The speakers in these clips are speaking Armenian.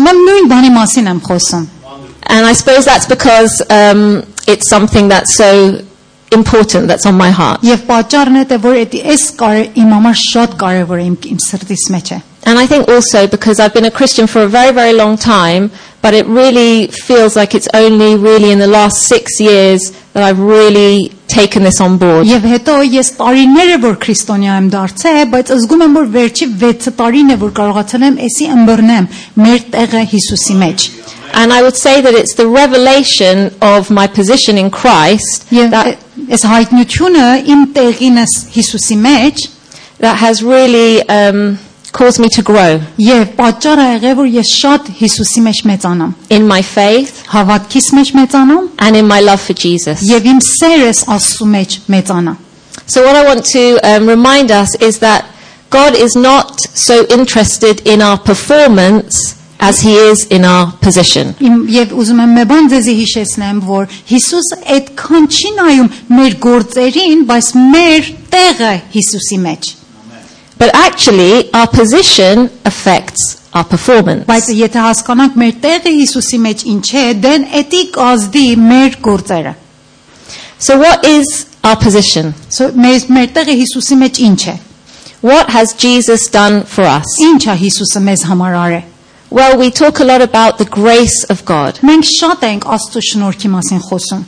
Նույն բանի մասին եմ խոսում. And I suppose that's because it's something that's so important, that's on my heart. Եվ պատճառն է որ իմ համար շատ կարևոր է իմ սրտիս մեջ է. And I think also because I've been a Christian for a very, very long time, but it really feels like it's only really in the last 6 years that I've really taken this on board. Եվ հետո ես տարիներ է որ քրիստոնյա եմ դարձել, բայց զգում եմ որ վերջի 6 տարին է որ կարողացել եմ էսի ըմբռնեմ մեր տեղը Հիսուսի մեջ. And I would say that it's the revelation of my position in Christ that հայտնությունը իմ տեղինս Հիսուսի մեջ that has really caused me to grow. Եվ պատճառը եղել որ ես շատ Հիսուսի մեջ մեծանամ. In my faith, հավատքիս մեջ մեծանամ, and in my love for Jesus. Եվ իմ սերս Աստծու մեջ մեծանա. So what I want to remind us is that God is not so interested in our performance as he is in our position. Եվ ուզում եմ մի բան ձեզի հիշեցնեմ, որ Հիսուսը այդքան չի նայում մեր գործերին, բայց մեր տեղը Հիսուսի մեջ. But actually our position affects our performance. Բայց եթե հասկանանք մեր տեղը Հիսուսի մեջ ինչ է, դեն էդի կազդի մեր գործերը. So what is our position? So մեր տեղը Հիսուսի մեջ ինչ է? What has Jesus done for us? Ինչ է Հիսուսը մեզ համար արել? Well, we talk a lot about the grace of God. Մենք շատ ենք Աստծո շնորհքի մասին խոսում.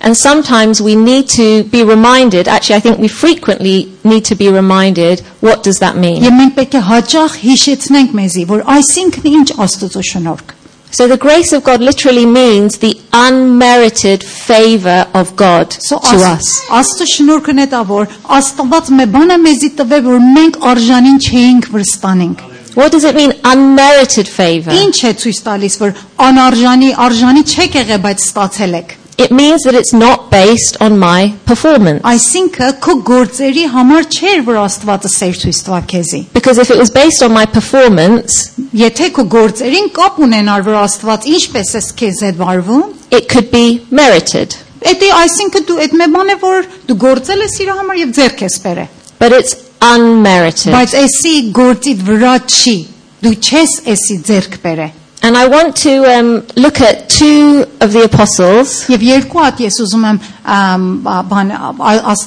And sometimes we need to be reminded, actually I think we frequently need to be reminded, what does that mean? Եվ մենք պետք է հաճախ հիշեցնենք մեզի, որ այսինքն ինչ Աստծո շնորհք. So the grace of God literally means the unmerited favor of God to us. Աստծո շնորհքն է դա, որ Աստված մի բան է մեզի տվել, որ մենք արժանին չէինք վստանենք. What does it mean, unmerited favor? Ինչ է ցույց տալիս, որ արժանի չեք եղել, բայց ստացել եք. It means that it's not based on my performance. Այսինքն քո գործերի համար չէր, որ Աստվածը սեր ցույց տա քեզի. Because if it was based on my performance, եթե քո գործերին կապ ունենար, որ Աստված ինչպես է քեզ հետ վարվում, it could be merited. Էդի այսինքն դու այդ մի բան է, որ դու գործել ես իր համար եւ ձեռք ես բերել. But it's unmerited. Բայց էսի գործիդ վրա չի, դու չես էսի ձեռք բերել. And I want to look at two of the apostles. Եվ երկու հատ ես ուզում եմ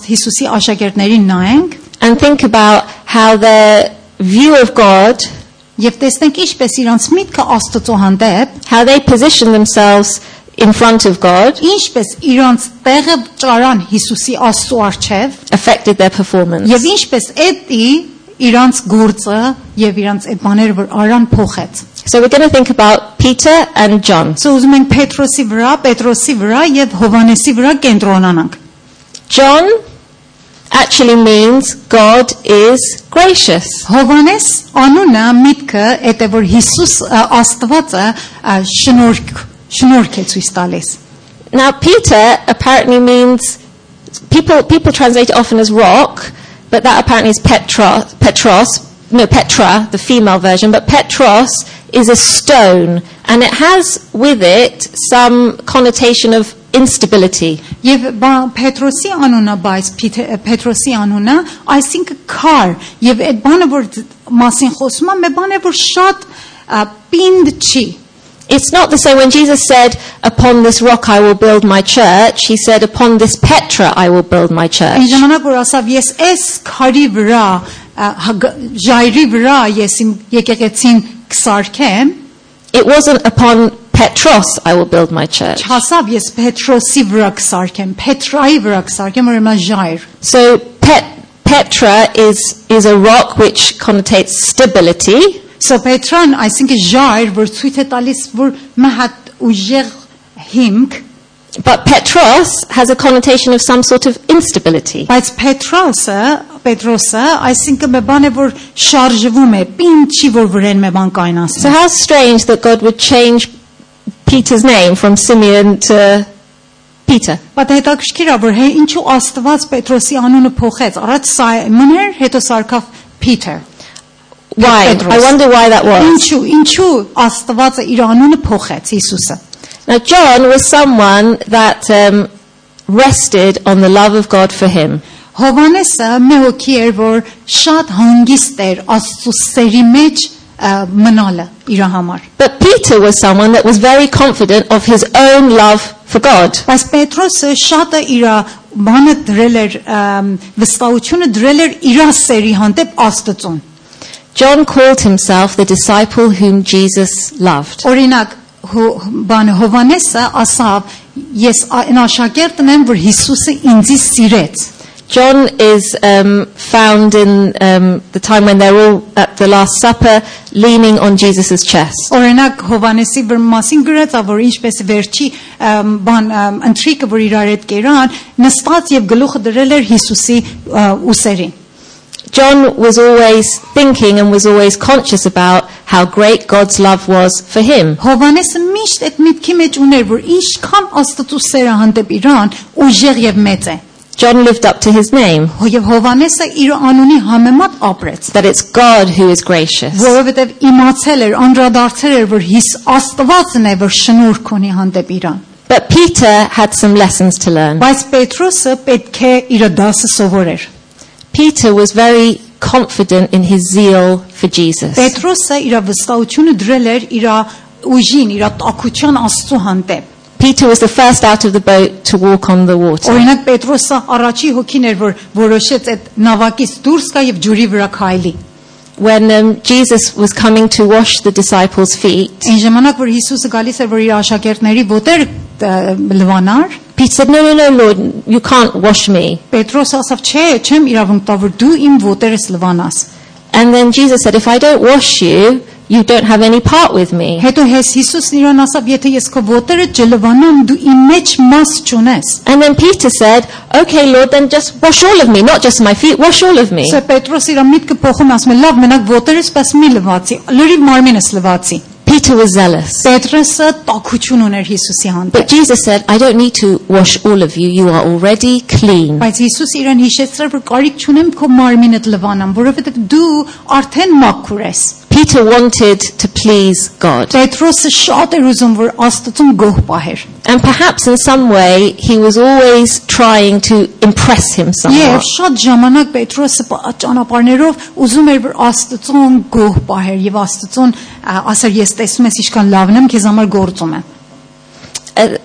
Հիսուսի աշակերտներին նայենք. And think about how the view of God, Եվ տեսնենք ինչպես իրանց միտքը Աստծո հանդեպ, how they position themselves in front of God, ինչպես իրանց տեղը ճարան Հիսուսի Աստծո առջև, affected their performance. Եվ ինչպես էդի իրանց գործը եւ իրանց այդ բաները որ արան փոխեց. So we're going to think about Peter and John. So ուզում ենք Պետրոսի վրա եւ Հովանեսի վրա կենտրոնանանք. John actually means God is gracious. Հովանես անունը միտքը է որ Հիսուս Աստվածը շնորհք է ցույց տալիս. Now Peter apparently means people translate it often as rock, but that apparently is Petra, the female version, but Petros is a stone, and it has with it some connotation of instability. Եվ Պետրոսի անունը, բայց Պետրոսի անունը, այսինքն քար, եւ այդ բանը որ մասին խոսում է, մի բան է որ շատ պինդ չի. It's not the same when Jesus said, upon this rock I will build my church. He said, upon this Petra I will build my church. Այն ժամանակ որ ասավ ես այս քարի վրա, ժայռի վրա ես իմ եկեղեցին կսարքեմ. It wasn't upon Petros I will build my church. Չասավ ես Պետրոսի վրա կսարքեմ, Պետրայի վրա կսարքեմ, որ հիմա ժայռ. So Petra is a rock which connotates stability. So Պետրան այսինքն ժայռ, որ ցույց է տալիս որ մի հատ ուժեղ հիմք. But Petros has a connotation of some sort of instability. Բայց Պետրոսը այսինքն մի բան է որ շարժվում է, պինդ չի որ վրան մի բան կայնացնի. So how strange that God would change Peter's name from Simeon to Peter. Բայց հետաքրքիր է որ ինչու Աստված Պետրոսի անունը փոխեց. Առաջ Սիմոն էր, հետո սարքավ Peter. Why? I wonder why that was. Ինչու Աստվածը իր անունը փոխեց Հիսուսը. Now John was someone that rested on the love of God for him. Հովանեսը մի հոգի էր որ շատ հանգիստ էր Աստծո սերի մեջ մնալը իր համար։ But Peter was someone that was very confident of his own love for God. Բայց Պետրոսը շատը իր բանը դրել էր վստահությունը դրել էր իր սերի հանդեպ Աստծուն։ John called himself the disciple whom Jesus loved. Օրինակ բանը Հովանեսը ասավ ես այն աշակերտն եմ որ Հիսուսը ինձ սիրեց։ John is found in the time when they're all at the Last Supper leaning on Jesus' chest. Օրինակ Հովանեսի մասին գրած որ ինչպես վերջի բան ընթրիկը որ իրար հետ կերան նստած եւ գլուխը դրել էր Հիսուսի ուսերին։ John was always thinking and was always conscious about how great God's love was for him. Հովանեսը միշտ այդ միտքի մեջ ուներ որ ինչքան Աստծո սերը հանդեպ իրան ուժեղ եւ մեծ է։ John lived up to his name. Եվ Հովանեսը իր անունի համեմատ ապրեց։ That it's God who is gracious. Որովհետև իմացել էր, անդրադարձել էր, որ Աստվածն է, որ շնորհք ունի հանդեպ իրան։ But Peter had some lessons to learn. Բայց Պետրոսը պետք է իր դասը սովորեր։ Peter was very confident in his zeal for Jesus. Պետրոսը իր վստահությունը դրել էր իր ուժին, իր տաքության Աստծո հանդեպ։ Peter was the first out of the boat to walk on the water. Օրինակ Պետրոսը առաջի հոգին էր, որ որոշեց այդ նավակից դուրս գա եւ ջուրի վրա քայլի։ When Jesus was coming to wash the disciples' feet, Այն ժամանակ որ Հիսուսը գալիս էր, որ իր աշակերտների ոտեր լվանար, Peter said, "No, Lord, you can't wash me." Պետրոսը ասավ, չէ, չեմ իրավունք տա, որ դու իմ ոտերս լվանաս։ And then Jesus said, "If I don't wash you, you don't have any part with me." Հետո Հիսուսն իրան ասավ, եթե ես քո ոտերը չլվանամ, դու իմ մեջ մաս չունես։ And then Peter said, "Okay, Lord, then just wash all of me, not just my feet, wash all of me." Սա Պետրոս իր միտքը փոխում ասում է, լավ, մենակ ոտերս պես մի լվացի, լրիվ մարմինս լվացի։ Peter was zealous. Պետրոսը տաքություն ուներ Հիսուսի But հանդեպ։ Jesus said, "I don't need to wash all of you. You are already clean." Բայց Հիսուս իրան հիշեցրել, որ կարիք չունեմ քո մարմինդ լվանամ, որովհետև դու արդեն մաքուր ես։ Peter wanted to please God. Պետրոսը շատ էր ուզում, որ Աստծուն գոհ պահեր։ And perhaps in some way he was always trying to impress him Եվ somewhat. շատ ժամանակ Պետրոսը ճանապարհներով ուզում էր, որ Աստծուն գոհ պահեր եւ Աստծուն ասեր, ես տեսնում ես ինչքան լավն եմ, քեզ համար գործում եմ։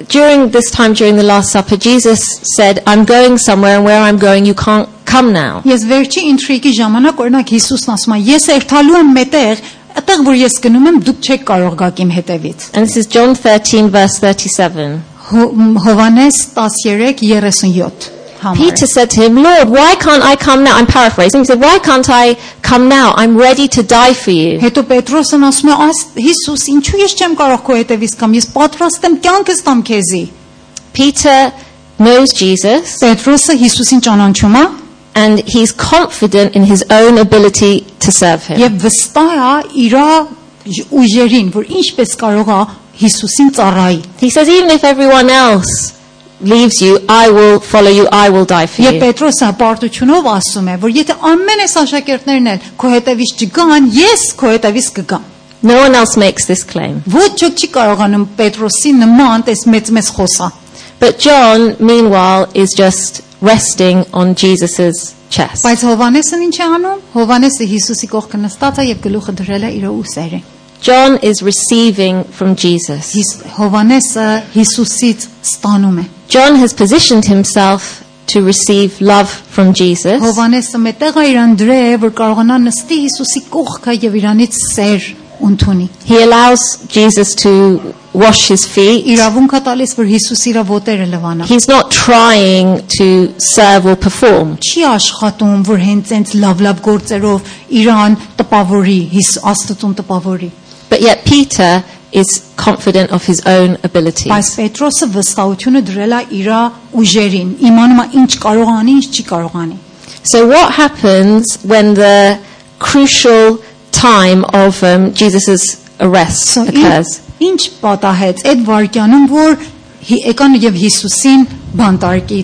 During this time, during the Last Supper, Jesus said, "I'm going somewhere, and where I'm going, you can't come now." Ես վերջի ինտրիգի ժամանակ օրինակ Հիսուսն ասում է, ես երթալու եմ մետեղ, այդտեղ որ ես գնում եմ, դուք չեք կարող գալ իմ հետևից։ And this is John 13, verse 37. Հովանես 13:37 համար։ Peter said to him, "Lord, why can't I come now?" I'm paraphrasing. He said, "Why can't I come now? I'm ready to die for you." Հետո Պետրոսն ասում է, Հիսուս, ինչու ես չեմ կարող քո հետևից կամ ես պատրաստ եմ կյանքս տամ քեզի։ Peter knows Jesus, Պետրոսը Հիսուսին ճանաչում է and he's confident in his own ability to serve him. եւ վստահ է իր ուժերին, որ ինչպես կարող է Հիսուսին ծառայի։ He says, "Even if everyone else leaves you, I will follow you, I will die for Եվ you." Պետրոսը պարտությունով ասում է, որ եթե ամեն այս աշակերտներն էլ քո հետևից չգան, ես քո հետևից կգամ։ No one else makes this claim. Ոչ ոք չի կարողանում Պետրոսի նման այս մեծ խոսա։ But John, meanwhile, is just resting on Jesus' chest. Բայց Հովանեսն ինչ է անում։ Հովանեսը Հիսուսի կողքը նստած է եւ գլուխը դրել է իր ուսերին։ John is receiving from Jesus. Հովանեսը Հիսուսից ստանում է։ John has positioned himself to receive love from Jesus. Հովանեսը մետեղ է իրան դրե, որ կարողանա նստի Հիսուսի կողքը եւ իրանից սեր ընդունի։ He allows Jesus to wash his feet. Իրավունք է տալիս, որ Հիսուս իր ոտերը լվանա։ He's not trying to serve or perform. Չի աշխատում, որ հենց այնց լավ գործերով իրան տպավորի, Աստծուն տպավորի։ But yet Peter is confident of his own abilities. Բայց Պետրոսը վստահությունը դրել է իր ուժերին, իմանում է ինչ կարող անի, ինչ չի կարող անի։ So what happens when the crucial time of Jesus' arrest occurs? Ինչ պատահեց այդ վարքյանում, որ եկան եւ Հիսուսին բանտարկի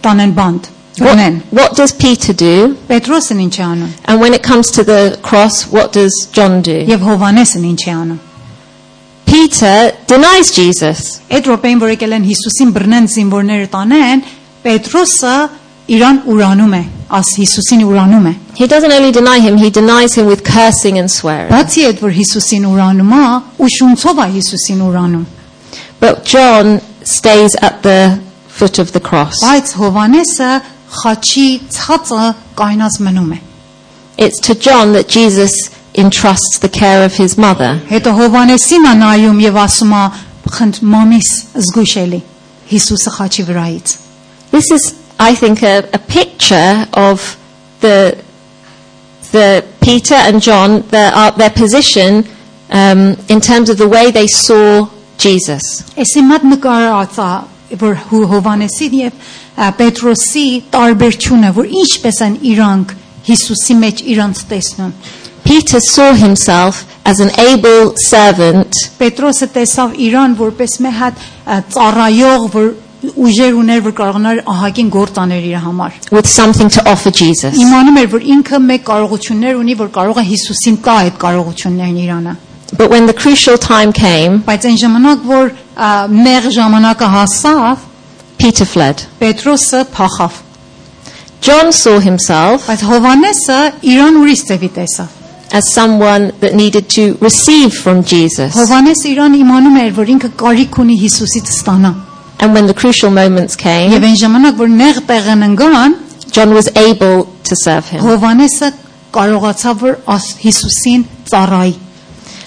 տանեն բանտ։ What does Peter do? Պետրոսն ինչ է անում։ And when it comes to the cross, what does John do? Եվ Հովանեսն ինչ է անում։ Peter denies Jesus. Այդ րոպեին, որ եկել են Հիսուսին բռնեն զինվորները տանեն, Պետրոսը իրան ուրանում է, աս Հիսուսին ուրանում է։ He doesn't only deny him, he denies him with cursing and swearing. Բացի այդ որ Հիսուսին ուրանում է, ու շունցով է Հիսուսին ուրանում։ But John stays at the foot of the cross. Բայց Հովանեսը խաչի ցածը կայնած մնում է։ It's to John that Jesus entrusts the care of his mother. Հետո Հովանեսին է նայում եւ ասում է խնդ մամիս զգուշելի Հիսուսը խաչի վրայից։ This is, I think, a picture of the Peter and John, their position in terms of the way they saw Jesus. Էսի մատ նկարած է որ Հովանեսի եւ Պետրոսի տարբերությունը, որ ինչպես են իրանք Հիսուսի մեջ իրանք տեսնում։ Peter saw himself as an able servant. Պետրոսը տեսավ իրան որպես մի հատ ծառայող, որ ուժեր ուներ, որ կարողանար ահագին գործ անել իր համար։ With something to offer Jesus. Իմանում էր, որ ինքը մեկ կարողություններ ունի, որ կարող է Հիսուսին տա այդ կարողություններն իրանը։ But when the crucial time came, Բայց այն ժամանակ, որ նեղ ժամանակը հասավ, Peter fled. Պետրոսը փախավ։ John saw himself Բայց Հովանեսը իրան ուրիշ ձևի տեսավ։ as someone that needed to receive from Jesus. Հովանեսը իրան իմանում էր, որ ինքը կարիք ունի Հիսուսից ստանա։ And when the crucial moments came, Եվ այն ժամանակ, որ նեղ տեղն ընկան, John was able to serve him. Հովանեսը կարողացավ որ Հիսուսին ծառայի։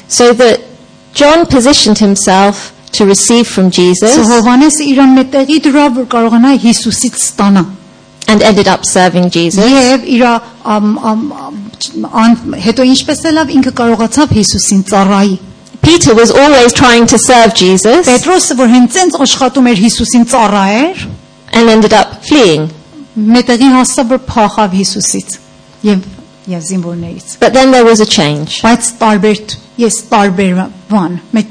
So that John positioned himself to receive from Jesus Հովանեսը իրան մետեղի դրավ, որ կարողանա Հիսուսից ստանա։ and ended up serving Jesus. Եվ իր հետո ինչպես ելավ ինքը կարողացավ Հիսուսին ծառայի։ Peter was always trying to serve Jesus Պետրոսը որ հենց այնց աշխատում էր Հիսուսին ծառայեր, and ended up fleeing. մետեղի հասավ որ փախավ Հիսուսից եւ զինվորներից։ But then there was a change. Բայց տարբեր բան, մեկ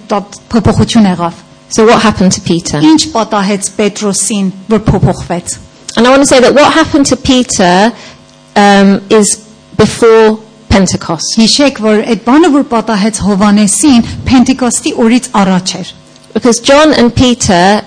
փոփոխություն եղավ։ So what happened to Peter? Ինչ պատահեց Պետրոսին, որ փոփոխվեց։ And I want to say that what happened to Peter is before Pentecost. Հիշեք, որ այդ բանը որ պատահեց Հովանեսին, Պենտեկոստի օրից առաջ էր։ Because John and Peter,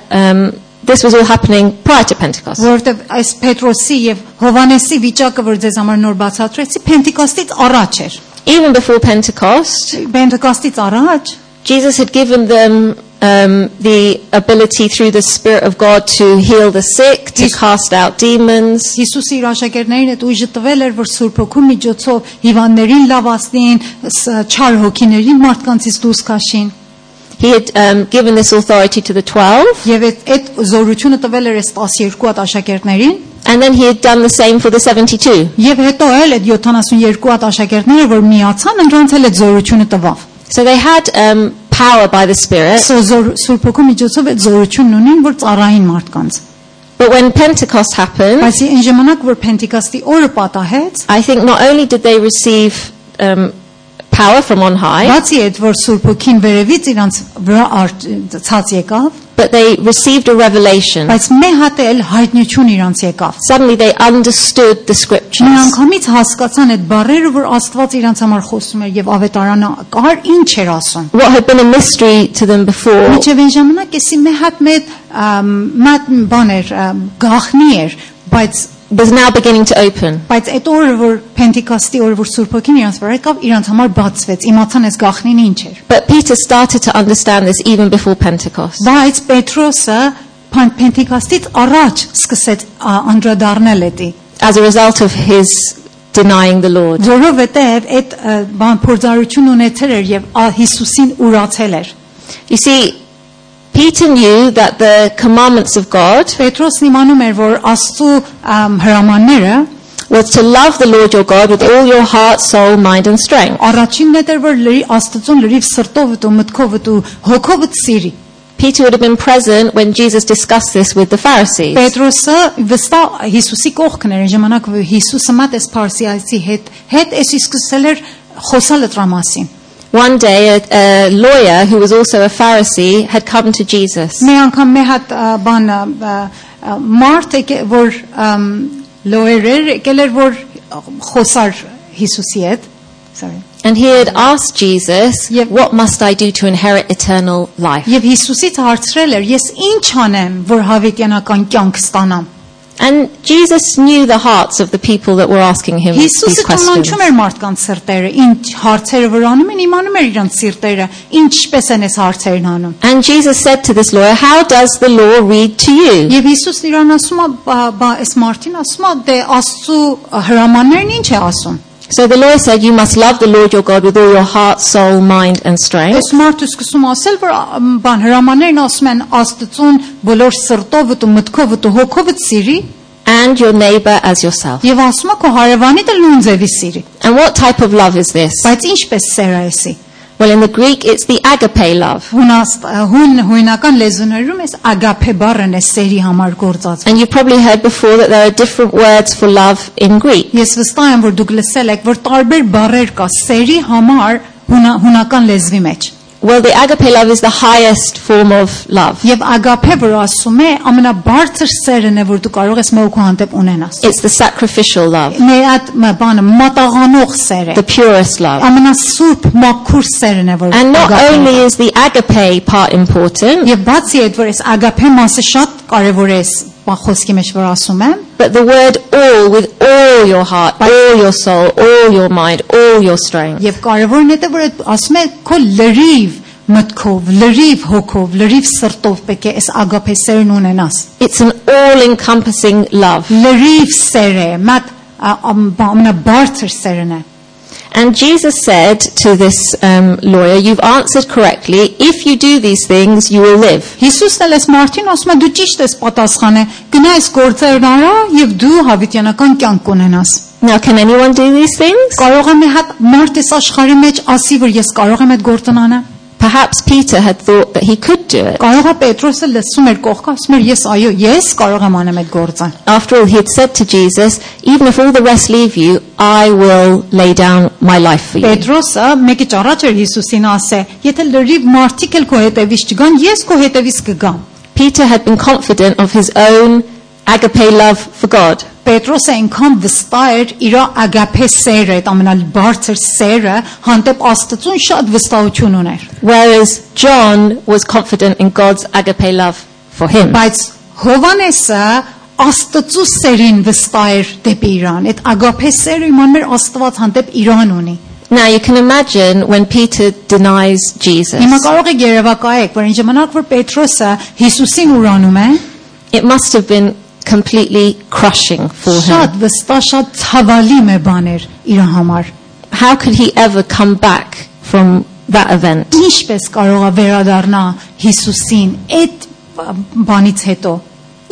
this was all happening prior to Pentecost. Որովհետև այս Պետրոսի եւ Հովանեսի վիճակը, որ ձեզ համար նոր բացատրեցի, Պենտեկոստից առաջ էր։ Even before Pentecost, Պենտեկոստից առաջ Jesus had given them the ability through the Spirit of God to heal the sick, to cast out demons. Հիսուսի իր աշակերտներին այդ ուժը տվել էր, որ Սուրբ Հոգու միջոցով հիվանդներին լավացնին, չար հոգիներին մարդկանցից դուրս քաշին։ He had given this authority to the 12. Եվ այդ զորությունը տվել էր այս 12 հատ աշակերտներին։ And then he had done the same for the 72. Եվ հետո էլ այդ 72 հատ աշակերտները, որ միացան, նրանց էլ այդ զորությունը տվավ։ So they had power by the Spirit. Սուրբ Հոգու միջոցով այդ զորությունն ունին, որ ծառային մարդկանց։ But when Pentecost happened, Բայց այն ժամանակ, որ Պենտեկոստի օրը պատահեց, I think not only did they receive power from on high, բացի այդ, որ Սուրբ Հոգին վերևից իրանց վրա ցած եկավ, but they received a revelation. բայց մի հատ էլ հայտնություն իրանց եկավ։ Suddenly they understood the scriptures. Միանգամից հասկացան այդ բառերը, որ Աստված իրանց համար խոսում էր եւ ավետարանը կար ինչ էր ասում։ What had been a mystery to them before Միջև այն ժամանակ էսի մի հատ մատ բաներ գախնի էր, բայց was now beginning to open. այդ օրը որ Պենտեկոստի օրը որ Սուրբ Հոգին իրանց վրա եկավ, իրանց համար բացվեց, իմացան այս գախնին ինչ էր։ But Peter started to understand this even before Pentecost. Բայց Պետրոսը Պենտեկոստից առաջ սկսեց անդրադառնել էդի, As a result of his denying the Lord. որովհետև այդ բան փորձառություն ունեցել էր եւ Հիսուսին ուրացել էր։ You see, Peter knew that the commandments of God Պետրոսն իմանում էր, որ Աստծո հրամանները was to love the Lord your God with all your heart, soul, mind and strength. առաջինն էր, որ Աստծուն լրիվ սրտով ու մտքով ու հոգով սիրի։ Peter would have been present when Jesus discussed this with the Pharisees. Պետրոսը վստահ Հիսուսի կողքն էր, ժամանակ որ Հիսուսը մատ էս Փարսիացի հետ էս սկսել էր խոսալ դրա մասին։ One day a lawyer who was also a Pharisee had come to Jesus. Մի անգամ մի հատ բան մարդ որ լոյեր եկել էր որ խոսար Հիսուսի հետ, sorry. And he had asked Jesus, what must I do to inherit eternal life? Եվ Հիսուսից հարցրել էր, ես ինչ անեմ, որ հավիտյանական կյանք ստանամ։ And Jesus knew the hearts of the people that were asking him these Հիսուսը questions. ճանաչում էր մարդկանց սրտերը, ինչ հարցերը վրանում են, իմանում էր իրանց սիրտերը, ինչպես են այս հարցերն անում։ And Jesus said to this lawyer, how does the law read to you? Եվ Հիսուսն իրան ասում է, այս մարդին ասում է, դե Աստծո հրամաններն ինչ է ասում։ So the lawyer said, you must love the Lord your God with all your heart, soul, mind and strength. Այս մարդը սկսում ասել, որ բան հրամաններն ասում են Աստծուն բոլոր սրտով ու մտքով ու հոգով սիրի, And your neighbor as yourself. եւ ասում է քո հարևանիդ էլ նույն ձևի սիրի։ And what type of love is this? Բայց ինչպես սեր է էսի։ Well, in the Greek, it's the agape love. Հունական լեզուներում էս ագափե բառն է սերի համար գործածվում։ And you've probably heard before that there are different words for love in Greek. Ես վստահ եմ, որ դուք լսել եք, որ տարբեր բառեր կա սերի համար հունական լեզվի մեջ։ Well, the agape love is the highest form of love. Եվ ագափե, որ ասում է, ամենաբարձր սերն է, որ դու կարող ես մեկու հանդեպ ունենաս։ It's the sacrificial love, Մեր այդ բանը մատաղանող սեր է։ the purest love. Ամենասուրբ մաքուր սերն է, որ And not ագափեն է։ only is the agape part important, Եվ բացի այդ, որ այս ագափե մասը շատ կարևոր է, խոսքի մեջ որ ասում եմ, but the word all, with all your heart, all your soul, all your mind, all your strength. եւ կարևորն է, որ այդ ասում է քո լրիվ մտքով, լրիվ հոգով, լրիվ սրտով պետք է այս ագափե սերն ունենաս։ It's an all-encompassing love. Լրիվ սեր է, մատ ամենաբարձր սերն է։ And Jesus said to this lawyer, you've answered correctly. If you do these things, you will live. Հիսուսն էլ այս մարդին ասում է դու ճիշտ ես պատասխանել, գնա այս գործերն արա եւ դու հավիտյանական կյանք կունենաս։ Now, can anyone do these things? Կարող եմ հատ մարդ այս աշխարհի մեջ ասի, որ ես կարող եմ այդ գործն անել։ Perhaps Peter had thought that he could do it. Կարող է Պետրոսը լսում էր կողքը, ասում էր ես այո, ես կարող եմ անեմ այդ գործը։ After all, he had said to Jesus, even if all the rest leave you, I will lay down my life for you. Պետրոսը մեկի ճառաջ էր Հիսուսին ասե, եթե լրիվ մարդիկ էլ քո հետևից չգան, ես քո հետևից կգամ։ Peter had been confident of his own agape love for God. Պետրոսը այնքան վստահ էր իր ագափե սերը, այդ ամենաբարձր սերը, հանդեպ Աստծուն շատ վստահություն ուներ։ Whereas John was confident in God's agape love for him. Բայց Հովանեսը Աստծու սերին վստահ էր դեպի իրան։ Այդ ագափե սերը իմաններ Աստված հանդեպ իրան ունի։ Now you can imagine when Peter denies Jesus. Հիմա կարող եք երևակայեք, որ այն ժամանակ որ Պետրոսը Հիսուսին ուրանում է, It must have been completely crushing for him. շատ վստահ, շատ ցավալի մի բան էր իր համար։ How could he ever come back from that event? Ինչպես կարող է վերադառնա Հիսուսին այդ բանից հետո,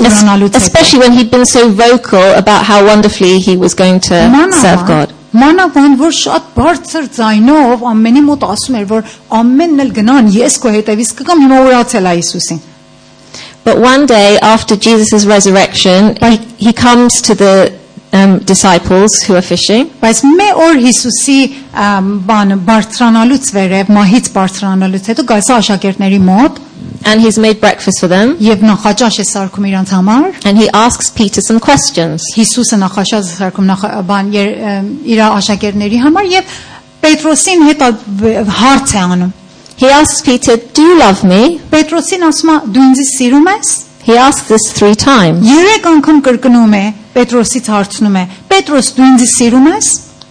ուրանալուց հետո։ Especially when he'd been so vocal about how wonderfully he was going to serve God. Մանավանդ որ շատ բարձր ձայնով ամենի մոտ ասում էր, որ ամենն էլ գնան, ես քո հետևից կգամ, հիմա ուրացել է Հիսուսին։ But one day after Jesus' resurrection, he comes to the disciples who are fishing. Բայց մի օր Հիսուսի բանը բարձրանալուց վերև, մահից բարձրանալուց հետո գալիս է աշակերտների մոտ And he's made breakfast for them. եւ նախաճաշ է սարքում իրանց համար։ And he asks Peter some questions. Հիսուսը նախաճաշ է սարքում բան իր աշակերտների համար եւ Պետրոսին հետ հարց է անում։ He asks Peter, do you love me? Պետրոսին ասում է դու ինձ սիրում ես։ He asks this 3 times. 3 անգամ կրկնում է, Պետրոսից հարցնում է. Պետրոս դու ինձ սիրում ես։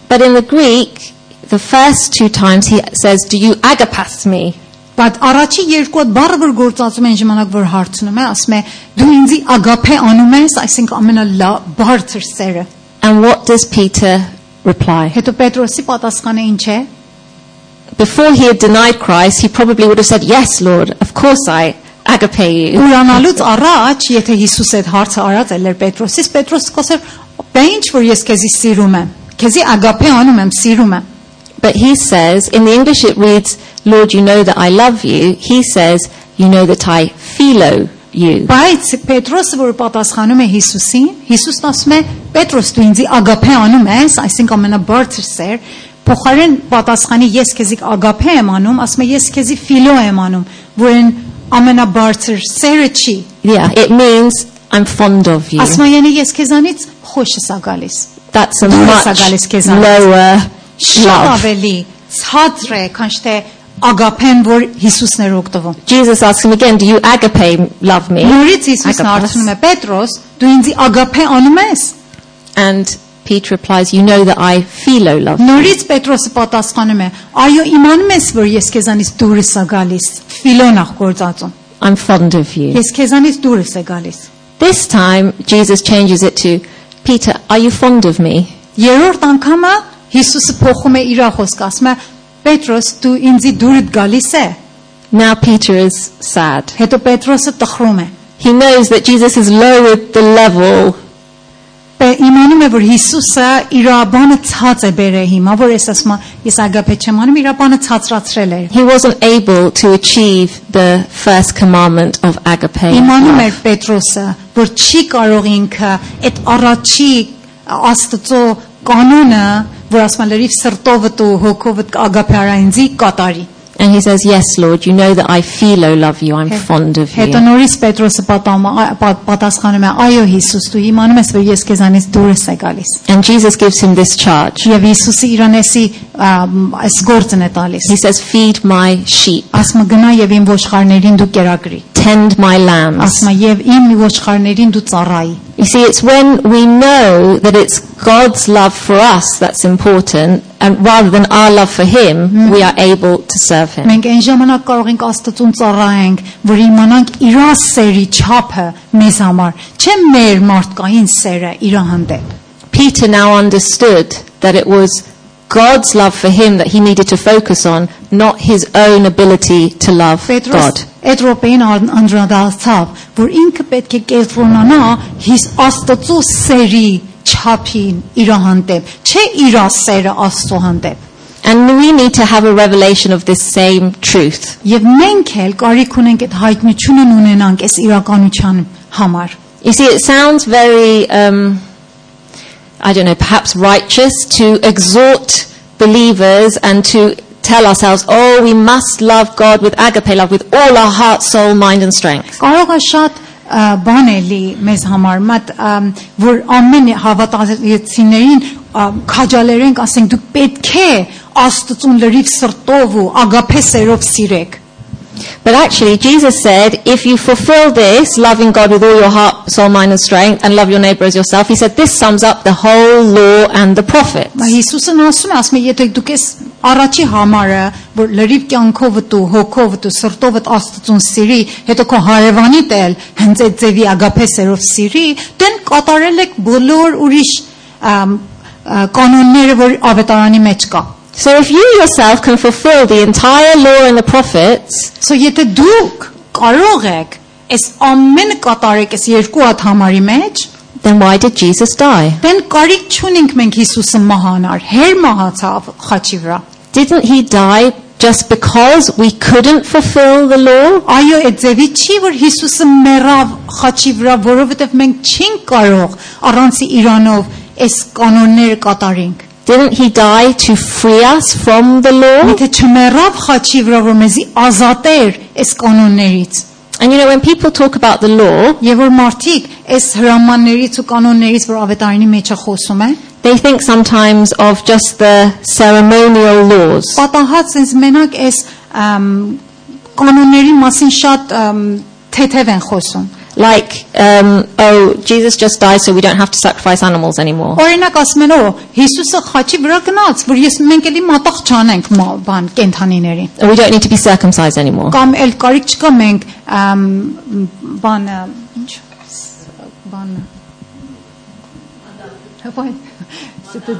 But in the Greek, the first 2 times he says, do you agapas me? Բայց առաջի 2 հատ բառը որ գործածում են ժամանակ որ հարցնում է, ասում է դու ինձ ագափե անում ես, այսինքն ամենաբարձր սերը։ And what does Peter reply? Հետո Պետրոսի պատասխանը ինչ է։ Before he had denied Christ, he probably would have said, yes, Lord, of course I agape you. Ուրանալուց առաջ, եթե Հիսուս այդ հարցը արած էր Պետրոսից, Պետրոսը կասեր, «Բա ինչ որ ես քեզի սիրում եմ, քեզի ագափե անում եմ, սիրում եմ»։ But he says, in the English it reads, Lord, you know that I love you. He says, you know that I philo you. Բայց Պետրոսը որ պատասխանում է Հիսուսին, Հիսուսն ասում է, Պետրոս դու ինձ ագափե անում ես, այսինքն ամենաբարձր սեր, փոխարեն պատասխանի ես քեզի ագափե եմ անում, ասում է ես քեզի ֆիլո եմ անում, որն ամենաբարձր սերը չի։ Yeah, it means I'm fond of you. Ասում է յանի ես քեզանից խոշ եմ գալիս։ That's a Դուրս much է գալիս քեզանից։ lower Շատ love. ավելի ցածր է, քան թե ագափեն, որ Հիսուսն էր օգտվում։ Jesus asks him again, do you agape love me? Նորից Հիսուսն հարցնում է Պետրոս, դու ինձ ագափե անում ես։ And Peter replies, you know that I philo love you. Նորից Պետրոսը պատասխանում է, այո, իմանում ես, որ ես քեզանից դուրս եմ գալիս։ Ֆիլոնախ գործածում։ I'm fond of you. Ես քեզանից դուրս եմ գալիս։ This time, Jesus changes it to, Peter, are you fond of me? Երրորդ անգամը Հիսուսը փոխում է իր խոսքը, ասում է Պետրոս դու ինձի դուրս գալիս է։ Now Peter is sad. Հետո Պետրոսը տխրում է։ He knows that Jesus has lowered the level. Իմանում է որ Հիսուսը իր բանը ցած է բերել հիմա, որ ասում է ես ագապե չեմ անում, իր բանը ցածրացրել է։ He wasn't able to achieve the first commandment of agape. Իմանում էր Պետրոսը, որ չի կարող ինքը այդ առաջի Աստծո կանոնը, որ ասում է լրիվ սրտովդ ու հոգովդ ագապե արայնձի կատարի։ And he says, yes, Lord, you know that I philo love you, I'm fond of Հետո you. նորից Պետրոսը պատասխանում է, այո Հիսուս, դու իմանում ես, որ ես քեզանից դուրս եմ գալիս։ And Jesus gives him this charge. Եվ Հիսուսը իրանեսի այս գործն է տալիս։ He says, feed my sheep, Ասում է գնա եւ իմ ոչխարներին դու կերակրի։ tend my lambs. Ասում է եւ իմ ոչխարներին դու ծառայի։ You see, it's when we know that it's God's love for us that's important, and rather than our love for him, we are able to serve him. Մենք այն ժամանակ կարող ենք Աստծուն ծառայենք, որ իմանանք իր սերի չափը մեզ համար, չէ մեր մարդկային սերը իր հանդեպ։ Peter now understood that it was God's love for him that he needed to focus on, not his own ability to love God. Այդ րոպեին անդրադարձավ, որ ինքը պետք է կենտրոնանա հիս Աստծո սերի չափին իր հանդեպ, չէ իր սերը Աստծո հանդեպ։ And we need to have a revelation of this same truth. Եվ մենք էլ կարիք ունենք այդ հայտնությունն ունենանք այս իրականության համար։ You see, it sounds very, I don't know, perhaps righteous to exhort believers and to tell ourselves, oh, we must love God with agape love, with all our heart, soul, mind and strength. Կարող է շատ բան էլի մեզ համար, մատ որ ամեն հավատացիներին քաջալերենք, ասենք դուք պետք է Աստծուն լրիվ սրտով ու ագապե սերով սիրեք։ But actually, Jesus said, if you fulfill this, loving God with all your heart, soul, mind and strength, and love your neighbor as yourself, he said, this sums up the whole law and the prophets. Հիսուսն ասում է, եթե դուք ես առաջի համարը, որ լրիվ կյանքովդ ու հոգովդ ու սրտովդ Աստծուն սիրի, հետո քո հարևանիդ էլ հենց այդ ձևի ագապե սերով սիրի, դեն կատարել եք բոլոր ուրիշ կանոնները, որ ավետարանի մեջ կա։ So if you yourself can fulfill the entire law and the prophets, So եթե դուք կարող եք այս ամենը կատարեք այս երկու հատ համարի մեջ, then why did Jesus die? դեն կարիք չունենք մենք Հիսուսը մահանար, հեր մահացավ խաչի վրա։ Didn't he die just because we couldn't fulfill the law? Այո, այդ ձևի չի, որ Հիսուսը մեռավ խաչի վրա, որովհետև մենք չենք կարող առանց իրանով այս կանոնները կատարենք։ Didn't he die to free us from the law? Եթե չմեռավ խաչի վրա, որ մեզի ազատեր այս կանոններից։ And you know, when people talk about the law, Եվ որ մարդիկ այս հրամաններից ու կանոններից, որ ավետարանի մեջ է խոսում է, they think sometimes of just the ceremonial laws. պատահած ինձ մենակ այս կանոնների մասին շատ թեթև են խոսում։ Like, oh, Jesus just died so we don't have to sacrifice animals anymore. Օրինակ ասում են, Հիսուսը խաչի վրա գնաց, որ մենք էլի մատաղ չանենք բան կենթանիների։ And we don't need to be circumcised anymore. Կամ էլ կարիք չկա մենք բանը, ինչ բանը։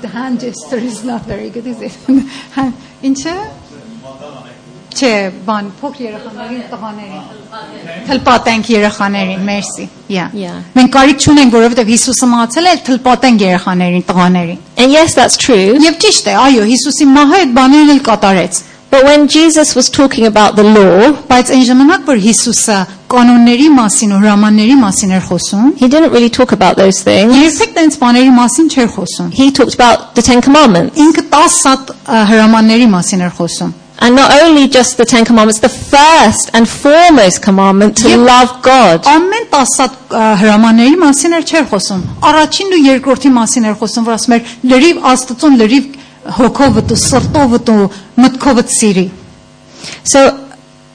The hand gesture is not very good, is it? Ինչը? Չէ, բան փոքր երեխաներին, տղաներին։ Թլպատենք երեխաներին, մերսի։ Yeah. Մենք կարիք չունենք, որովհետև Հիսուսը մահացել է, թլպատենք երեխաներին, տղաներին։ And yes, that's true. Եվ ճիշտ է, այո, Հիսուսի մահը այդ բաներն էլ կատարեց։ But when Jesus was talking about the law, Բայց այն ժամանակ, որ Հիսուսը կանոնների մասին ու հրամանների մասին էր խոսում, he didn't really talk about those things. երբեք տենց բաների մասին չէր խոսում։ He talked about the Ten Commandments. Ինքը 10 հրամանների մասին էր խոսում։ And not only just the Ten Commandments, the first and foremost commandment to love God. Ամեն 10 հրամանների մասին էր չէր խոսում։ Առաջին ու երկրորդի մասին էր խոսում, որ ասում էր լրիվ Աստծուն լրիվ հոգովդ ու սրտովդ ու մտքովդ սիրի։ So,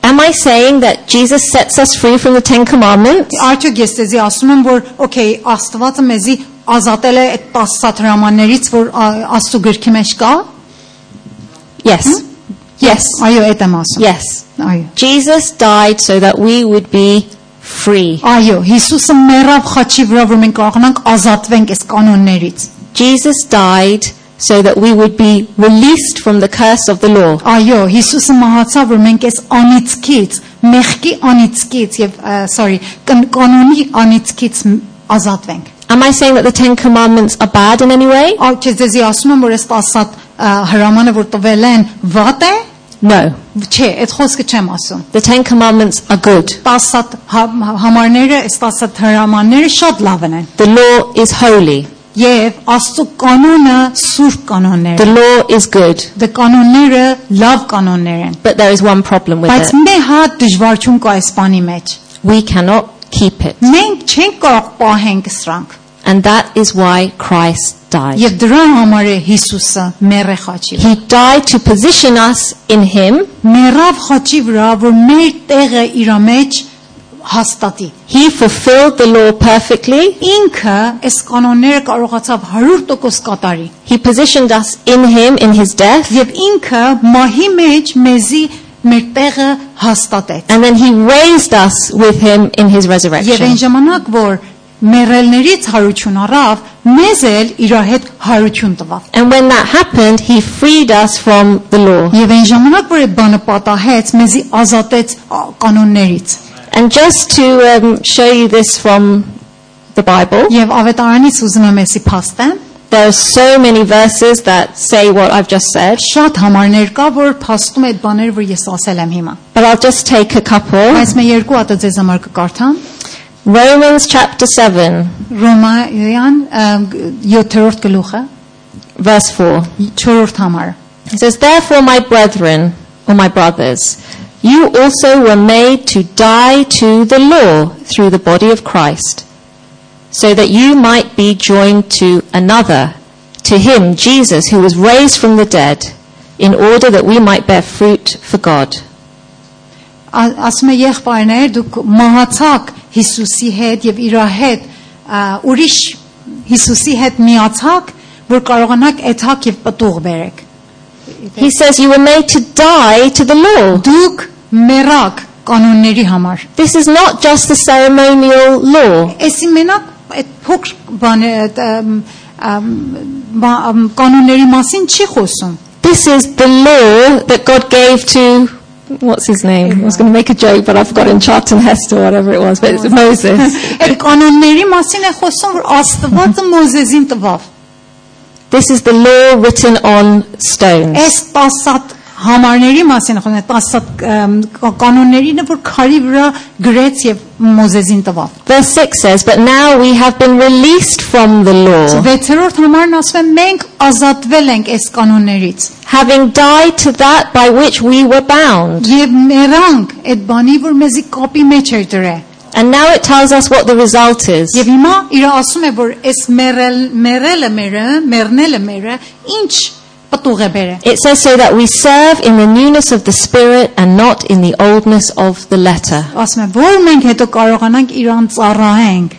am I saying that Jesus sets us free from the Ten Commandments? Արդյոք ես դեզի ասում եմ, որ okay, Աստվածը մեզի ազատել է այդ 10 հրամաններից, որ Աստծո գրքի մեջ կա։ Yes. Yes. Այո, այդ եմ ասում։ Yes. Այո։ Jesus died so that we would be free. Այո, Հիսուսը մեռավ խաչի վրա, որ մենք կարողանանք ազատվենք այս կանոններից։ Jesus died so that we would be released from the curse of the law. Այո, Հիսուսը մահացավ, որ մենք այս անիծքից, մեղքի անիծքից եւ կանոնի անիծքից ազատվենք։ Am I saying that the Ten Commandments are bad in any way? Այո, դեզի ասում եմ, որ այս 10 հրամանը, որ տվել են, վատ է։ No. Չէ, այդ խոսքը չեմ ասում։ The Ten Commandments are good. 10 համարները, այս 10 հրամանները շատ լավն են։ The law is holy. Եվ Աստծո կանոնը սուրբ կանոններ The են։ law is good. Դե կանոնները լավ կանոններ են։ But there is one problem with Բայց it. մի հատ դժվարություն կա այս բանի մեջ։ We cannot keep it. Մենք չենք կարող պահենք սրանք։ And that is why Christ died. Եվ դրա համար է Հիսուսը մեռե խաչի վրա։ He died to position us in Him. Մեռավ խաչի վրա, որ մեր տեղը իր մեջ հաստատի։ He fulfilled the law perfectly. Ինքը այս կանոնները կարողացավ 100% կատարի։ He positioned us in Him in His death. Եվ ինքը մահի մեջ մեզի մեր տեղը հաստատեց։ And then He raised us with Him in His Եվ այն resurrection. ժամանակ, որ մեռելներից հարություն առավ, մեզ էլ իր հետ հարություն տվավ։ And when that happened, He freed us from the law. Եվ այն ժամանակ, որ այդ բանը պատահեց, մեզի ազատեց կանոններից։ And just to show you this from the Bible, Եվ ավետարանից ուզում եմ էսի փաստեմ, there are so many verses that say what I've just said, շատ համարներ կա, որ փաստում է այդ բաները, որ ես ասել եմ հիմա։ but I'll just take a couple. Բայց მე երկու հատ ձեզ համար կկարդամ։ Romans chapter 7, Ռոմայական 7-րդ գլուխը, verse 4. 4-րդ համարը։ It says, "Therefore, my brethren, or my brothers, you also were made to die to the law through the body of Christ, so that you might be joined to another, to Him, Jesus, who was raised from the dead, in order that we might bear fruit for God." Ասում է եղբայրներ, դուք մահացաք Հիսուսի հետ եւ իր հետ ուրիշ Հիսուսի հետ միացաք, որ կարողանաք էթակ եւ պտուղ բերեք։ He says you were made to die to the law. Դուք մեռաք կանոնների համար։ This is not just the ceremonial law. Էսի մենակ այդ փոքր բանը կանոնների մասին չի խոսում։ This is the law that God gave to, what's his name? I was going to make a joke, but I've forgotten, Charlton Heston or whatever it was, but it's Moses. Այդ կանոնների մասին է խոսում, որ Աստվածը Մոզեսին տվավ։ This is the law written on stones. Այս 10 համարների մասին է խոսում, 10 կանոններին, որ քարի վրա գրեց եւ Մոզեսին տվավ։ Verse 6 says, "But now we have been released from the law, 6-րդ համարն ասում է մենք ազատվել ենք այս կանոններից having died to that by which we were bound." եւ մեռանք այդ բանի, որ մեզի կապի մեջ էր դրել։ And now it tells us what the result is. Եվ հիմա իր ասում է, որ այս մեռնելը մերը ինչ պտուղ է բերել։ It says so that we serve in the newness of the Spirit and not in the oldness of the letter. Ասում է, որ մենք հետո կարողանանք իրան ծառայենք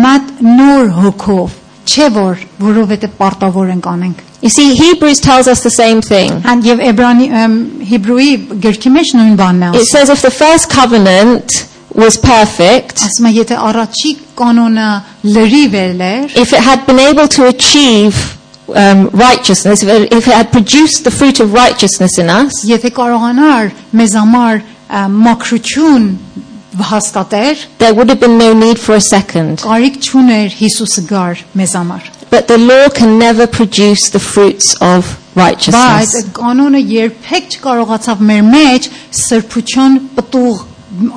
մատ նոր հոգով, չէ որ որովհետեւ պարտավոր ենք անենք։ You see, Hebrews tells us the same thing. And եւ Հեբրոյի գրքի մեջ նույն բանն է It ասում։ says if the first covenant was perfect, Ասում է, եթե առաջի կանոնը լրիվ էր, if it had been able to achieve righteousness, if it had produced the fruit of righteousness in us, եթե կարողանար մեզ համար մաքրություն հաստատեր, there would have been no need for a second. կարիք չուներ Հիսուսը գար մեզ համար։ But the law can never produce the fruits of Բայց righteousness. այդ կանոնը երբեք չկարողացավ մեր մեջ սրբություն պտուղ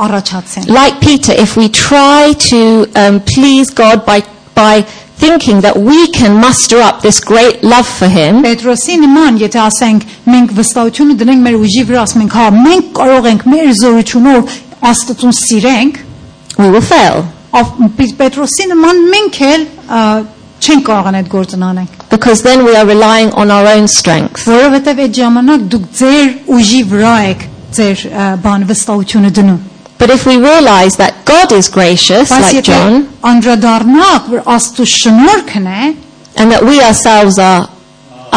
առաջացնել։ Like Peter, if we try to please God by thinking that we can muster up this great love for Him, Պետրոսի նման, եթե ասենք մենք վստահությունը դնենք մեր ուժի վրա, ասենք հա մենք կարող ենք մեր զորությունով Աստծուն սիրենք, we will fail. Պետրոսի նման մենք էլ չենք կարողան այդ գործն անենք։ Because then we are relying on our own strength. Որովհետև այդ ժամանակ դուք ձեր ուժի վրա եք ձեր բան վստահությունը դնում։ But if we realize that God is gracious, Բայց like եթե John, անդրադառնանք, որ Աստծո շնորհքն է, and that we ourselves are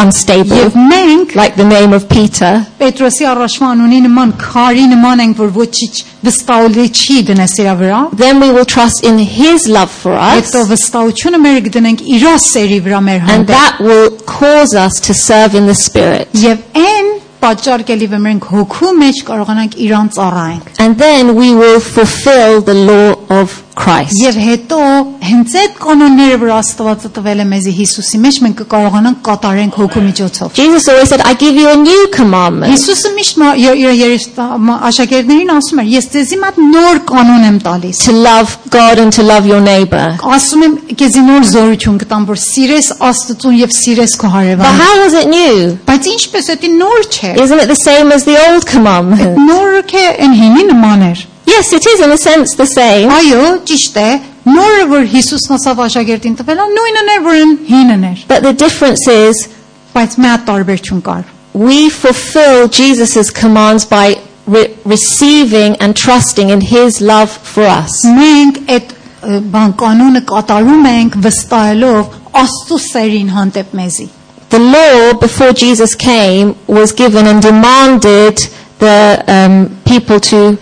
unstable, եւ մենք like the name of Peter, Պետրոսի առաջվա անունի նման քարի նման ենք, որ ոչինչ վստահելի չի դնես իր վրա, then we will trust in His love for us, հետո վստահությունը մեր կդնենք իր սերի վրա մեր and հանդեպ, that will cause us to serve in the Spirit. եւ այն պատճառ կլի որ մենք հոգու մեջ կարողանանք իրան ծառայենք։ And then we will fulfill the law of Christ. Եվ հետո հենց այդ կանոնները, որ Աստվածը տվել է մեզի Հիսուսի մեջ, մենք կկարողանանք կատարենք հոգու միջոցով։ Jesus always said, I give you a new commandment. Հիսուսը միշտ իր աշակերտներին ասում էր, ես ձեզի մոտ նոր կանոն եմ տալիս։ To love God and to love your neighbor. Ասում եմ, քեզի նոր զորություն կտամ, որ սիրես Աստծուն եւ սիրես քո But հարևանին։ how was it new? Բայց ինչպես դա նոր չէ։ Isn't it the same as the old commandment? Նորը կե այն հինի նման էր։ Yes, it is in a sense the same. Այո, ճիշտ է։ Նորը որ Հիսուսն ասավ աշակերտին տվել, նույնն էր, որ հինն էր։ But the difference is Բայց մի հատ տարբերություն կար։ we fulfill Jesus' commands by receiving and trusting in His love for us. Մենք այդ բան կանոնը կատարում ենք վստահելով Աստծո սերին հանդեպ մեզի։ The law before Jesus came was given and demanded the people to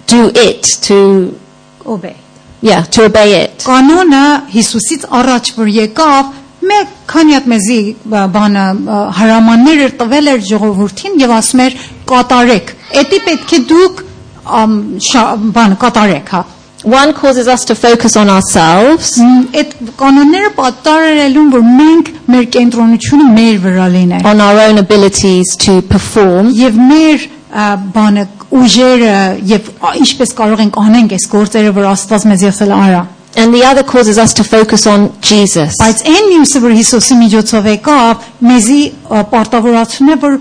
do it, to Obey։ to obey it. Կանոնը Հիսուսից առաջ որ եկավ, մեկ քանի հատ մեզի բանը հրամաններ էր տվել էր ժողովրդին եւ ասում էր կատարեք։ Էդի պետք է դուք բան կատարեք, հա։ One causes us to focus on ourselves, Այդ կանոնները պատտարելուն որ մենք մեր կենտրոնությունը մեր վրա լիներ on our own abilities to perform, եւ մեր բանը ուժերը եւ ինչպես կարող ենք անենք այս գործերը որ Աստված մեզ եսել արա and the other causes us to focus on Jesus. բայց այն մյուսը որ Հիսուսի միջոցով եկավ մեզի պարտավորացնում է որ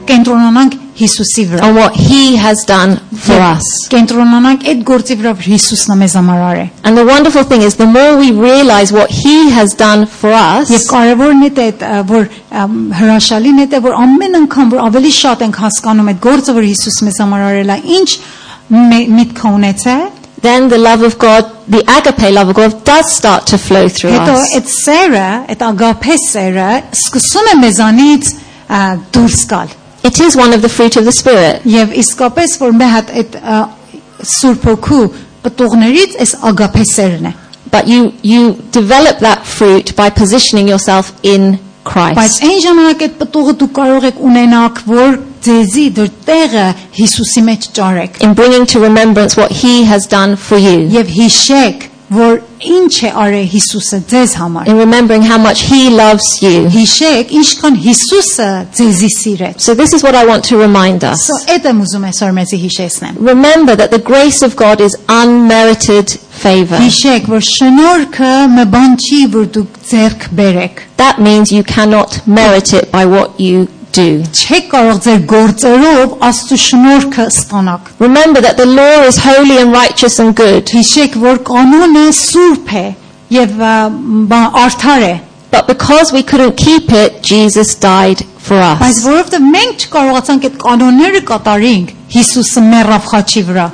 կենտրոնանանք Հիսուսի վրա On what He has done for us. կենտրոնանանք այդ գործի վրա որ Հիսուսն է մեզ համար արել And the wonderful thing is, the more we realize what He has done for us, Եվ կարևորն է դա որ հրաշալին է դա որ ամեն անգամ որ ավելի շատ ենք հասկանում այդ գործը որ Հիսուսը մեզ համար արել է ինչ միտք ունեցել then the love of God, the agape love of God, does start to flow through հետո us. այդ սերը այդ ագափե սերը սկսում է մեզանից դուրս գալ It is one of the fruit of the Spirit. Եվ իսկապես որ մի հատ այդ Սուրբ Հոգու պտուղներից այս ագափե սերն է But you develop that fruit by positioning yourself in բայց Christ. այն ժամանակ այդ պտուղը դու կարող եք ունենաք որ ձեզի դեռ տեղը Հիսուսի մեջ ճարեք In bringing to remembrance what He has done for you. եւ հիշեք որ ինչ է արել Հիսուսը ձեզ համար In remembering how much He loves you. հիշեք ինչքան Հիսուսը ձեզի սիրեց So this is what I want to remind us. Այդ եմ ուզում այսօր մեզի հիշեցնեմ Remember that the grace of God is unmerited favor. Հիշեք որ շնորհքը մի բան չի որ դուք ձեռք բերեք That means you cannot merit it by what you do. չեք կարող ձեր գործերով Աստծո շնորհքը ստանաք Remember that the law is holy and righteous and good. հիշեք որ կանոնը սուրբ է եւ արդար է But because we couldn't keep it, Jesus died for բայց us. որովհետեւ մենք չկարողացանք այդ կանոնները կատարենք Հիսուսը մեռավ խաչի վրա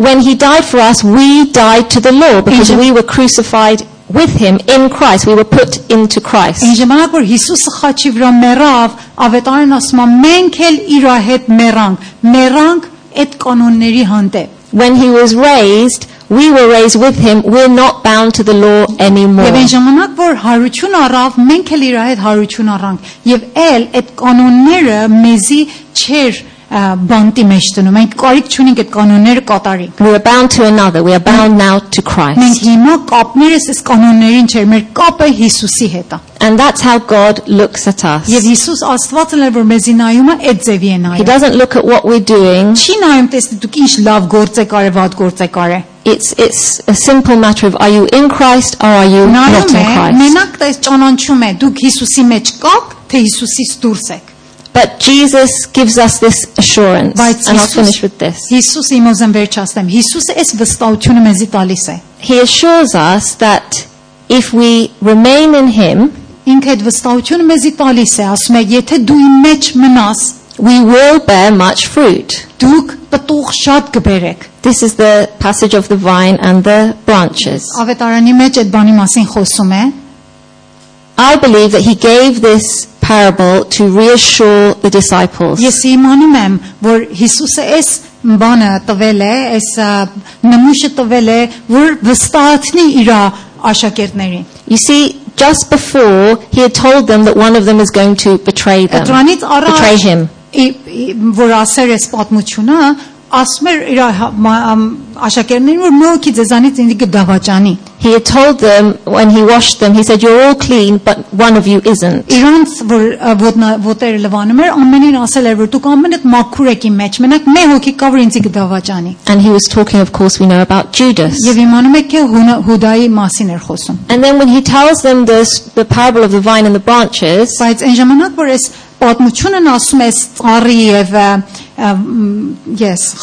When He died for us, we died to the law because we were crucified with Him in Christ. We were put into Christ. Այն ժամանակ որ Հիսուսը խաչի վրա մեռավ ավետարան ասում է մենք էլ իր հետ մեռանք այդ կանոնների հանդեպ When He was raised, we were raised with Him. We're not bound to the law anymore. Եվ այն ժամանակ որ հարություն առավ մենք էլ իր հետ հարություն առանք եւ էլ այդ կանոնները մեզի չեր բանտի մեջ դնում մենք կարիք չունենք այդ կանոնները կատարենք We are bound to another. We are bound now to մենք Christ. հիմա կապներս այս կանոններին չէր մեր կապը Հիսուսի հետ է And that's how God looks at us. եւ Հիսուս Աստվածն էլ որ մեզի նայում է այդ ձևի է He նայում doesn't look at what we're doing. չի նայում տեսնի դուք ինչ լավ գործ եք արել վատ գործ եք արել It's a simple matter of are you in Christ or are you not նայում in է Christ. մենակ դա ճանաչում է դուք Հիսուսի մեջ կաք թե Հիսուսից դուրս եք But Jesus gives us this assurance. Բայց And I'll finish with this. Հիսուս իմ ուզեմ վերջացնեմ Հիսուսը այս վստահությունը մեզի տալիս է He assures us that if we remain in Him, ինքը այդ վստահությունը մեզի տալիս է ասում է եթե դու իմ մեջ մնաս we will bear much fruit. Դուք պտուղ շատ կբերեք։ This is the passage of the vine and the branches. Ավետարանի մեջ այդ բանի մասին խոսում է։ I believe that he gave this parable to reassure the disciples. Ես իմանում եմ, որ Հիսուսը այս բանը տվել է, այս նմուշը տվել է, որ վստահացնի իր աշակերտներին։ You see, just before he had told them that one of them is going to betray them, Դրանից betray առաջ him. որ ասեր այս պատմությունը, ասում էր իր աշակերտներին, որ մեկի ձեզանից ինձ կդավաճանի։ He had told them when he washed them, he said, "You're all clean, but one of you isn't." Իրանց որ ոտերը լվանում էր, ամենին ասել էր, որ դուք ամենդ մաքուր եք իմ մեջ, մենակ մի հոգի կա, որ ինձ կդավաճանի։ And he was talking, of course, we know about Judas. Եվ իմանում եք Հուդայի մասին էր խոսում։ And then when he tells them the parable of the vine and the branches, Բայց այն ժամանակ, որ այս պատմությունն ասում է ծառի եւ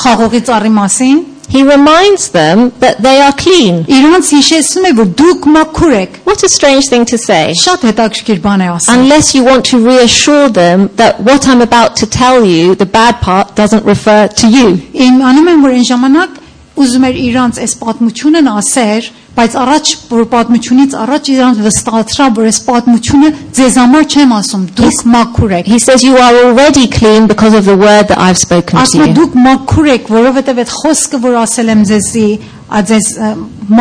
խաղողի ծառի մասին, he reminds them that they are clean. իրանց հիշեցնում է, որ դուք մաքուր եք։ What a strange thing to say. Շատ հետաքրքիր բան է ասում։ Unless you want to reassure them that what I'm about to tell you, the bad part, doesn't refer to you. Իմանում եմ, որ այն ժամանակ ուզում էր իրանց այս պատմությունն ասեր, բայց առաջ որ պատմությունից առաջ իրանց վստահացրա, որ այս պատմությունը ձեզ համար չեմ ասում, դուք մաքուր եք։ He says you are already clean because of the word that I've spoken to Ասում է you. դուք մաքուր եք, որովհետև այդ խոսքը, որ ասել եմ ձեզի, ձեզ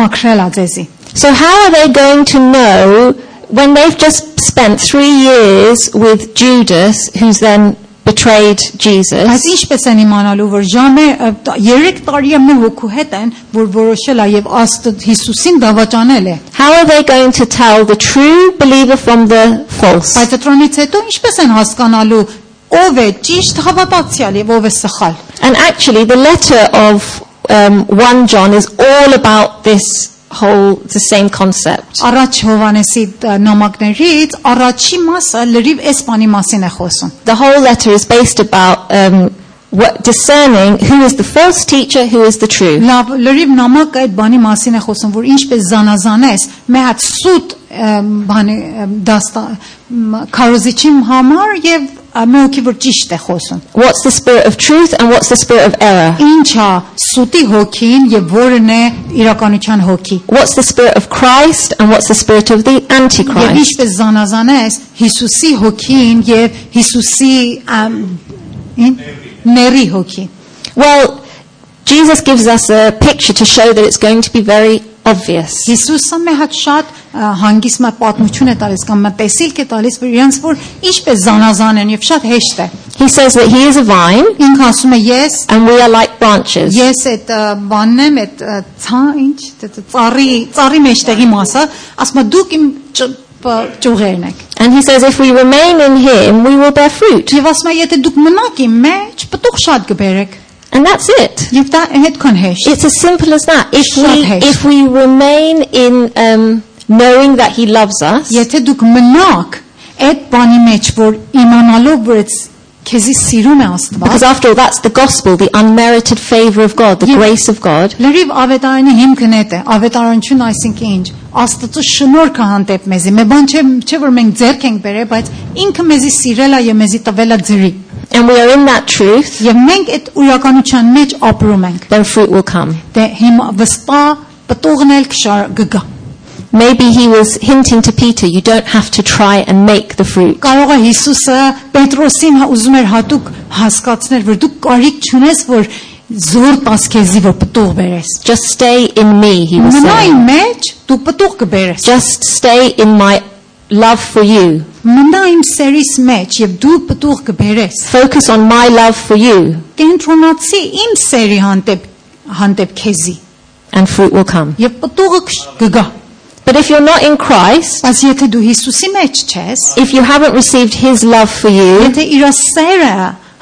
մաքրել է ձեզի։ So how are they going to know when they've just spent 3 years with Judas, who's then betrayed Բայց Jesus? ինչպես են իմանալու, որ ժամը 3 տարի է մեր հոգու հետ են, որ որոշել է եւ Աստծո Հիսուսին դավաճանել է։ How are they going to tell the true believer from the false? Բայց դրանից հետո ինչպես են հասկանալու ով է ճիշտ հավատացյալ եւ ով է սխալ։ And actually the letter of 1 John is all about this the same concept. Առաջ Հովանեսի նամակներից առաջի մասը լրիվ այս բանի մասին է խոսում։ The whole letter is based about discerning who is the false teacher, who is the true. Լավ լրիվ նամակը այդ բանի մասին է խոսում, որ ինչպես զանազանես մի հատ սուտ բանի դաստա քարոզիչի համար եւ մեկի որ ճիշտ է խոսում։ What's the spirit of truth and what's the spirit of error? Ինչա սուտի հոգին եւ որն է իրականության հոգի։ What's the spirit of Christ and what's the spirit of the Եվ Antichrist? ինչպես զանազանես Հիսուսի հոգին եւ Հիսուսի ների հոգի։ Well, Jesus gives us a picture to show that it's going to be very obvious. Հիսուսը մի հատ շատ հանգիստ պատմություն է տալիս կամ տեսիլք է տալիս, որ իրենց որ ինչպես զանազան են եւ շատ հեշտ է։ He says that he is a vine Ինքը ասում է ես and we are like branches. Ես այդ բանն եմ, այդ ծառի մեջտեղի մասը, ասում է դուք իմ ճյուղերն եք։ And he says if we remain in him, we will bear fruit. Եվ ասում է եթե դուք մնաք իմ մեջ, պտուղ շատ կբերեք։ And that's it. Եվ դա հետքան հեշտ։ It's as simple as that. Շատ If we remain in knowing that he loves us, Եթե դուք մնաք այդ բանի մեջ, որ իմանալով որ քեզի սիրում է Աստված, because after all that's the gospel, the unmerited favor of God, the grace of God. լրիվ ավետարանի հիմքն է, ավետարանություն այսինքն ինչ, Աստծո շնորհքը հանդեպ մեզի։ Մի բան չէ որ մենք ձեռք ենք բերել, բայց ինքը մեզի սիրել է եւ մեզի տվել է ձրի։ And we are in that truth, Եվ մենք այդ ուրականության մեջ ապրում ենք։ then fruit will come. Դե հիմա վստահ պտուղն էլ կգա։ Maybe he was hinting to Peter, you don't have to try and make the fruit. Կարող է Հիսուսը Պետրոսին ուզում էր հատուկ հասկացնել, որ դու կարիք չունես, որ զոր տաս քեզի որ պտուղ բերես։ Just stay in me, he was Մնա saying. իմ մեջ, դու պտուղ կբերես։ Just stay in my love for you. Մնա իմ սերիս մեջ եւ դու պտուղ կբերես։ Focus on my love for you Կենտրոնացի իմ սերի հանդեպ քեզի and fruit will come. եւ պտուղը կգա։ But if you're not in Christ, Բայց եթե դու Հիսուսի մեջ չես, if you haven't received his love for you, եթե իր սերը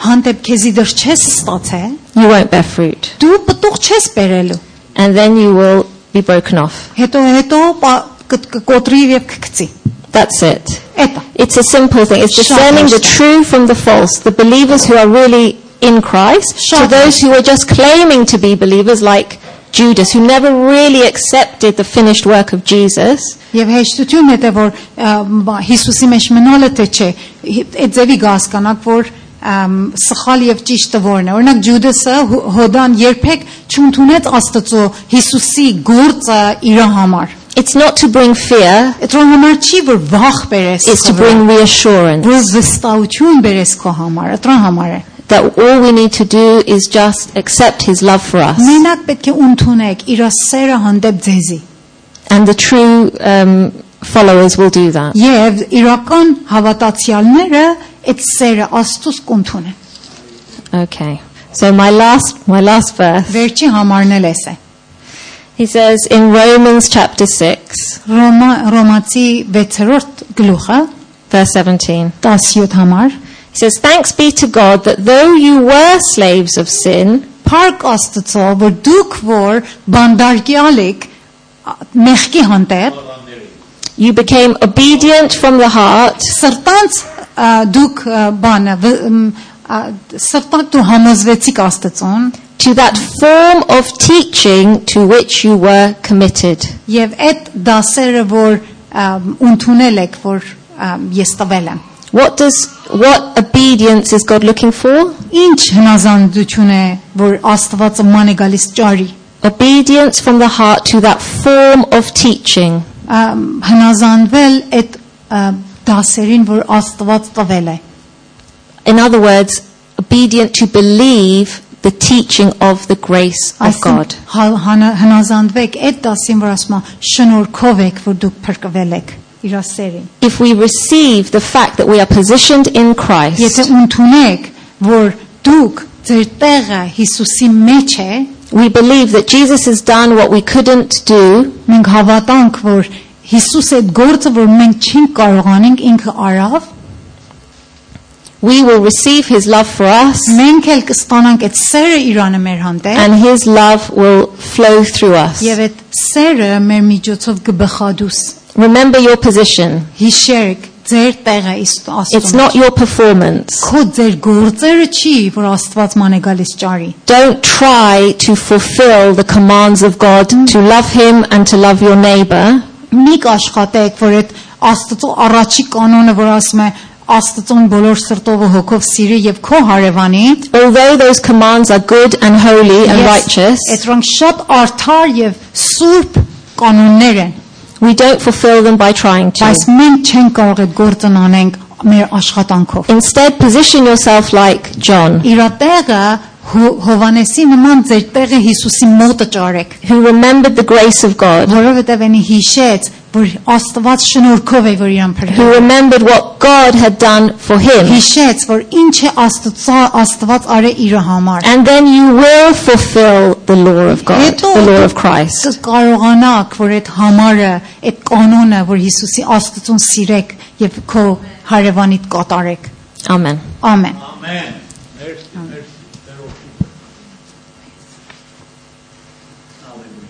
հանդեպ քեզի դեռ չես ստացել, you won't bear fruit. դու պտուղ չես բերելու։ And then you will be broken off. Հետո կկոտրի եւ կգցի։ That's it. Էտա։ It's a simple thing. It's Shut discerning the up. true from the false. The believers who are really in Christ, Shut to up. those who are just claiming to be believers like Judas, who never really accepted the finished work of Jesus. Եվ հեշտությունն է թե որ Հիսուսի մեջ մնալը թե չէ։ Այդ ձևի հասկանաք որ սխալ եւ ճիշտը որն է։ Օրինակ Ջուդասը Հոդան երբեք չընդունեց Աստծո Հիսուսի գործը իր համար։ It's not to bring fear, Այդրոն համար չի որ վախ բերես, it's to bring reassurance. որ վստահություն բերես քո համար, այդրոն համար է։ That all we need to do is just accept his love for us. Մենակ պետք է ընդունեք իր սերը հանդեպ ձեզի։ And the true followers will do that. Եվ իրական հավատացյալները այդ սերը Աստծուց կընդունեն։ Okay. So my last verse. Վերջի համարն էլ էս է։ He says in Romans chapter 6, Ռոմացի 6-րդ գլուխը verse 17. 17 համար He says, "Thanks be to God that though you were slaves of sin, Փառք Աստծո, որ դուք որ բանդարգյալ եք մեղքի հանդեպ, you became obedient from the heart սրտանց դուք բանը սրտանց դու համոզվեցիք Աստծուն to that form of teaching to which you were committed." եւ այդ դասերը որ ընդունել եք որ ես տվել եմ What obedience is God looking for? ինչ հնազանդություն է որ Աստվածը ման է գալիս ճարի Obedience from the heart to that form of teaching. հնազանդվել այդ դասերին որ Աստված տվել է In other words, obedient to believe the teaching of the grace of God. հնազանդվեք այդ դասին որ ասում է շնորհքով եք որ դուք փրկվել եք իր սերին If we receive the fact that we are positioned in Christ, եթե ընդունեք որ դուք ձեր տեղը Հիսուսի մեջ է we believe that Jesus has done what we couldn't do, մենք հավատանք որ Հիսուս այդ գործը որ մենք չենք կարողանենք ինքը արավ we will receive his love for us, մենք էլ կստանանք այդ սերը Իրանը մեր հանդեպ and his love will flow through us. եւ այդ սերը մեր միջոցով կբխադուս Remember your position. հիշեք ձեր տեղը It's Աստծո not your performance. քո ձեր գործերը չի որ Աստված ման է գալիս ճարի Don't try to fulfill the commands of God to love him and to love your neighbor. մի աշխատեք որ այդ Աստծո առաջի կանոնը որ ասում է Աստծուն բոլոր սրտով ու հոգով սիրի եւ քո հարևանի Although those commands are good and holy and righteous, Այդրանք շատ արդար եւ սուրբ կանոններ են we don't fulfill them by trying to. բայց մենք չենք կարող այդ գործն անենք մեր աշխատանքով Instead, position yourself like John, իր տեղը Հովանեսի նման ձեր տեղը Հիսուսի մոտը ճարեք who remembered the grace of God, որովհետեւ այնի հիշեց որ Աստված շնորհքով է որ իրան who փրկել remembered what God had done for him. հիշեց որ ինչ է Աստված արել իր համար And then you will fulfill the law of God, the law of Christ. Կարողանաք որ այդ համարը, այդ կանոնը, որ Հիսուսի Աստծուն սիրեք եւ քո հարևանիդ կատարեք։ Amen. Ամեն։ Amen. Hallelujah.